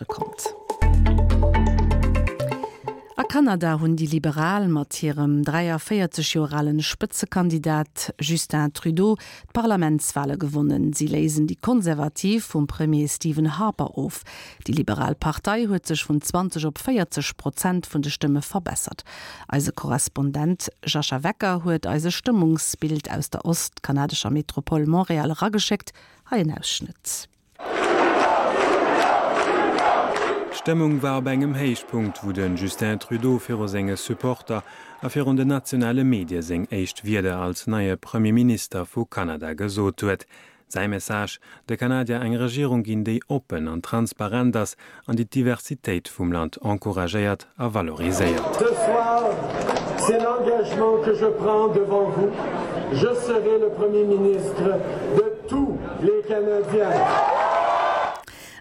Konnt. A Kanada hunn déi Liberal mat hirem 43 Joer alen Spëtzekandidat Justin Trudeau d'Parlamentswale gewonnen. Si léisen déi Konservativ vum Premier Stephen Harper of. Déi Liberal Partei huet sech vun 20 op 40 Prozent vun de Stëmme verbessert. Eise Korrespondent Jascha Wecker huet eis e Stëmmungsbild aus der ostkanadescher Metropole Montréal erageschéckt. Hei en Ausschnëtt. D'Stëmmung war op engem Héichpunkt, wou de Justin Trudeau viru senge Supporter a virun den nationale Medie seng éischt Wierder als neie Premier Minister vu Kanada gesot huet. Säi Message, De Kanadier eng Regierung ginn, déi oppen an transparent ass an déi d'Diversitéit vum Land encouragéiert a valoriséiert. Ce soir, c'est l'engagement que je prends devant vous, je serai le Premier ministre de tous les Canadiens.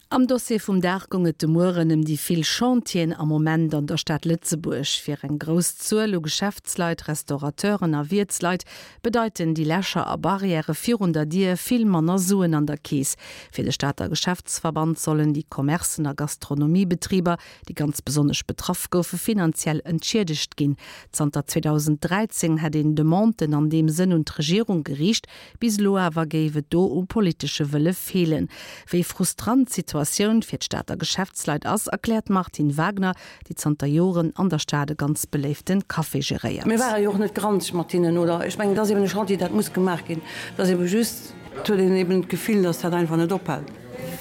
Am Dossier vum Dag goung et de Mueren ëm déi vill Chantieren am Moment an der Stad Lëtzebuerg. Fir eng grouss Zuel u Geschäftsleit, Restaurateuren a Wiertsleit bedeiten déi Lächer a Barrièrë virun der Dier vill manner Suen an der Keess. Fir de Stater Geschäftsverband sollen déi Commercen a Gastronomiebetriber, déi ganz besonnesch betraff goufe, finanziell entschiedegt ginn. Zanter 2013 hätt een Demanden an deem Sënn un d'Regierung geriicht, bis elo awer géif et do u politesche Wëlle feelen. Wéi frustrant d'Situatioun fir d'Stater Geschäftsleit ass, erkläert d'Martine Wagner, déi zanter Joren an der Stad e ganz beléifte Café geréiert. Mir ware jo och net granzeg mat hinnen, oder? Ech mengen, et ass eben e Chantier, dat muss gemaach ginn. Et ass ebe just, et huet een eben d'Gefill, datt dat einfach net ophält,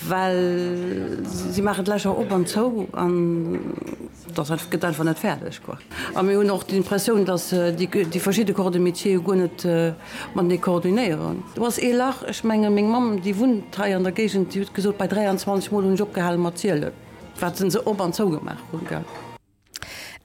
well si maachen d'Lächer op an zou an et ass einfach, gëtt einfach net fäerdeg, quoi. A mir hunn och d'Impressioun, datt déi verschidde Corps de métier jo guer net matenee koordinéieren. Do ass ee Lach, ech menge meng Mamm, déi wunnt hei an der Géigend, déi huet gesot, bei 23 Mol hunn ech opgehale mat zielen. Wat se op an zou gemaach hunn, gell.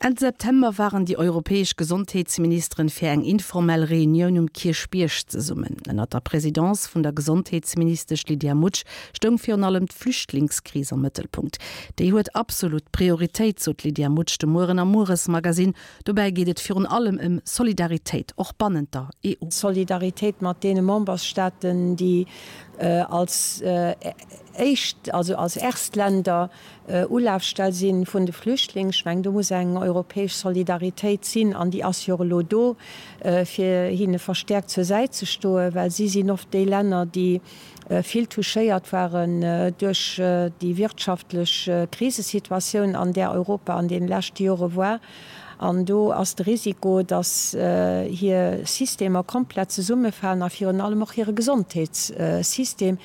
Enn September waren déi europäesch Gesondheetsministeren fir eng informell Reunioun um Kierchbierg zesummen. Ënnert der Presidence vun der Gesondheetsministesch Lydia Mutsch stoung virun allem d'Flüchtlingskris am Mëttelpunkt. Déi huet absolut Prioritéit, sot d'Lydia Mutsch de Mueren am Mueresmagasinn. Dobäi geet et virun allem ëm Solidaritéit, och bannent der EU. Solidaritéit mat deene Memberstaaten, déi als éischt, also als Erstländer Ulafstell si vun de Flüchtlingen. Ech mengen, do muss eng europäesch Solidaritéit sinn, an déi ass jo och elo do, fir hinne verstäerkt zur Säit ze stoen, well si sinn oft déi Länner, déi vill touchéiert waren duerch déi wirtschaftlech Krisesituatioun, an där Europa an deene leschte Jore war. An do ass de Risiko, datt hir Systemer komplett zesummefalen a virun allem och hire Gesondheetssystem.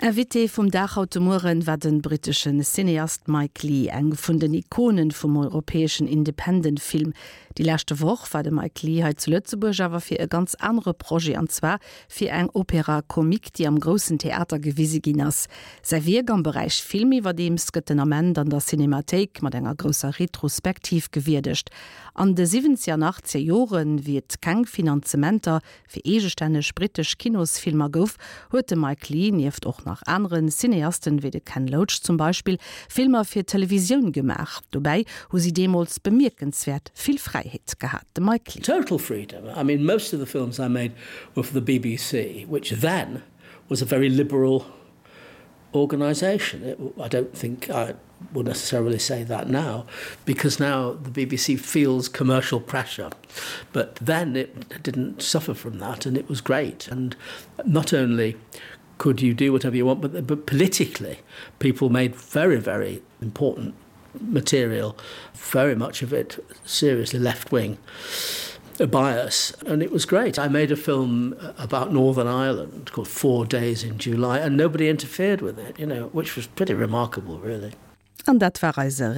Invité vum Dag haut de Mueren war den britteschen Cineast Mike Leigh, eng vun den Ikonen vum europäeschen Independent Film. Déi leschte Woch war de Mike Leigh hei zu Lëtzebuerg awer fir e ganz anere Projet, an zwar fir eng Opéra comique, déi am Groussen Theater gewise ginn ass. Säi Wierk am Beräich Film iwwerdeems gëtt den Ament an der Cinémathéik mat enger grousser Retrospektiv gewierdegt. An de siwwenzeger an achtzeger Joren, wéi et keng Finanzementer fir eegestänneg brittesch Kinosfilmer gouf, huet de Mike Leigh, nieft och nach anere Cineasten, wéi de Ken Loach zum Beispill, Filmer fir d'Televisioun gemaach. Dobäi hu si deemools bemierkenswäert vill Fräiheet gehat. De Mike Leigh. Total freedom. I mean, most of the films I made were for the BBC, which then was a very liberal organisation. I don't think I would necessarily say that now, because now the BBC feels commercial pressure. But then it didn't suffer from that and it was great. And not only could you do whatever you want, but, but politically people made very, very important material, very much of it seriously left-wing bias and it was great. I made a film about Northern Ireland called Four Days in July and nobody interfered with it, you know, which was pretty remarkable really. An dat war eise.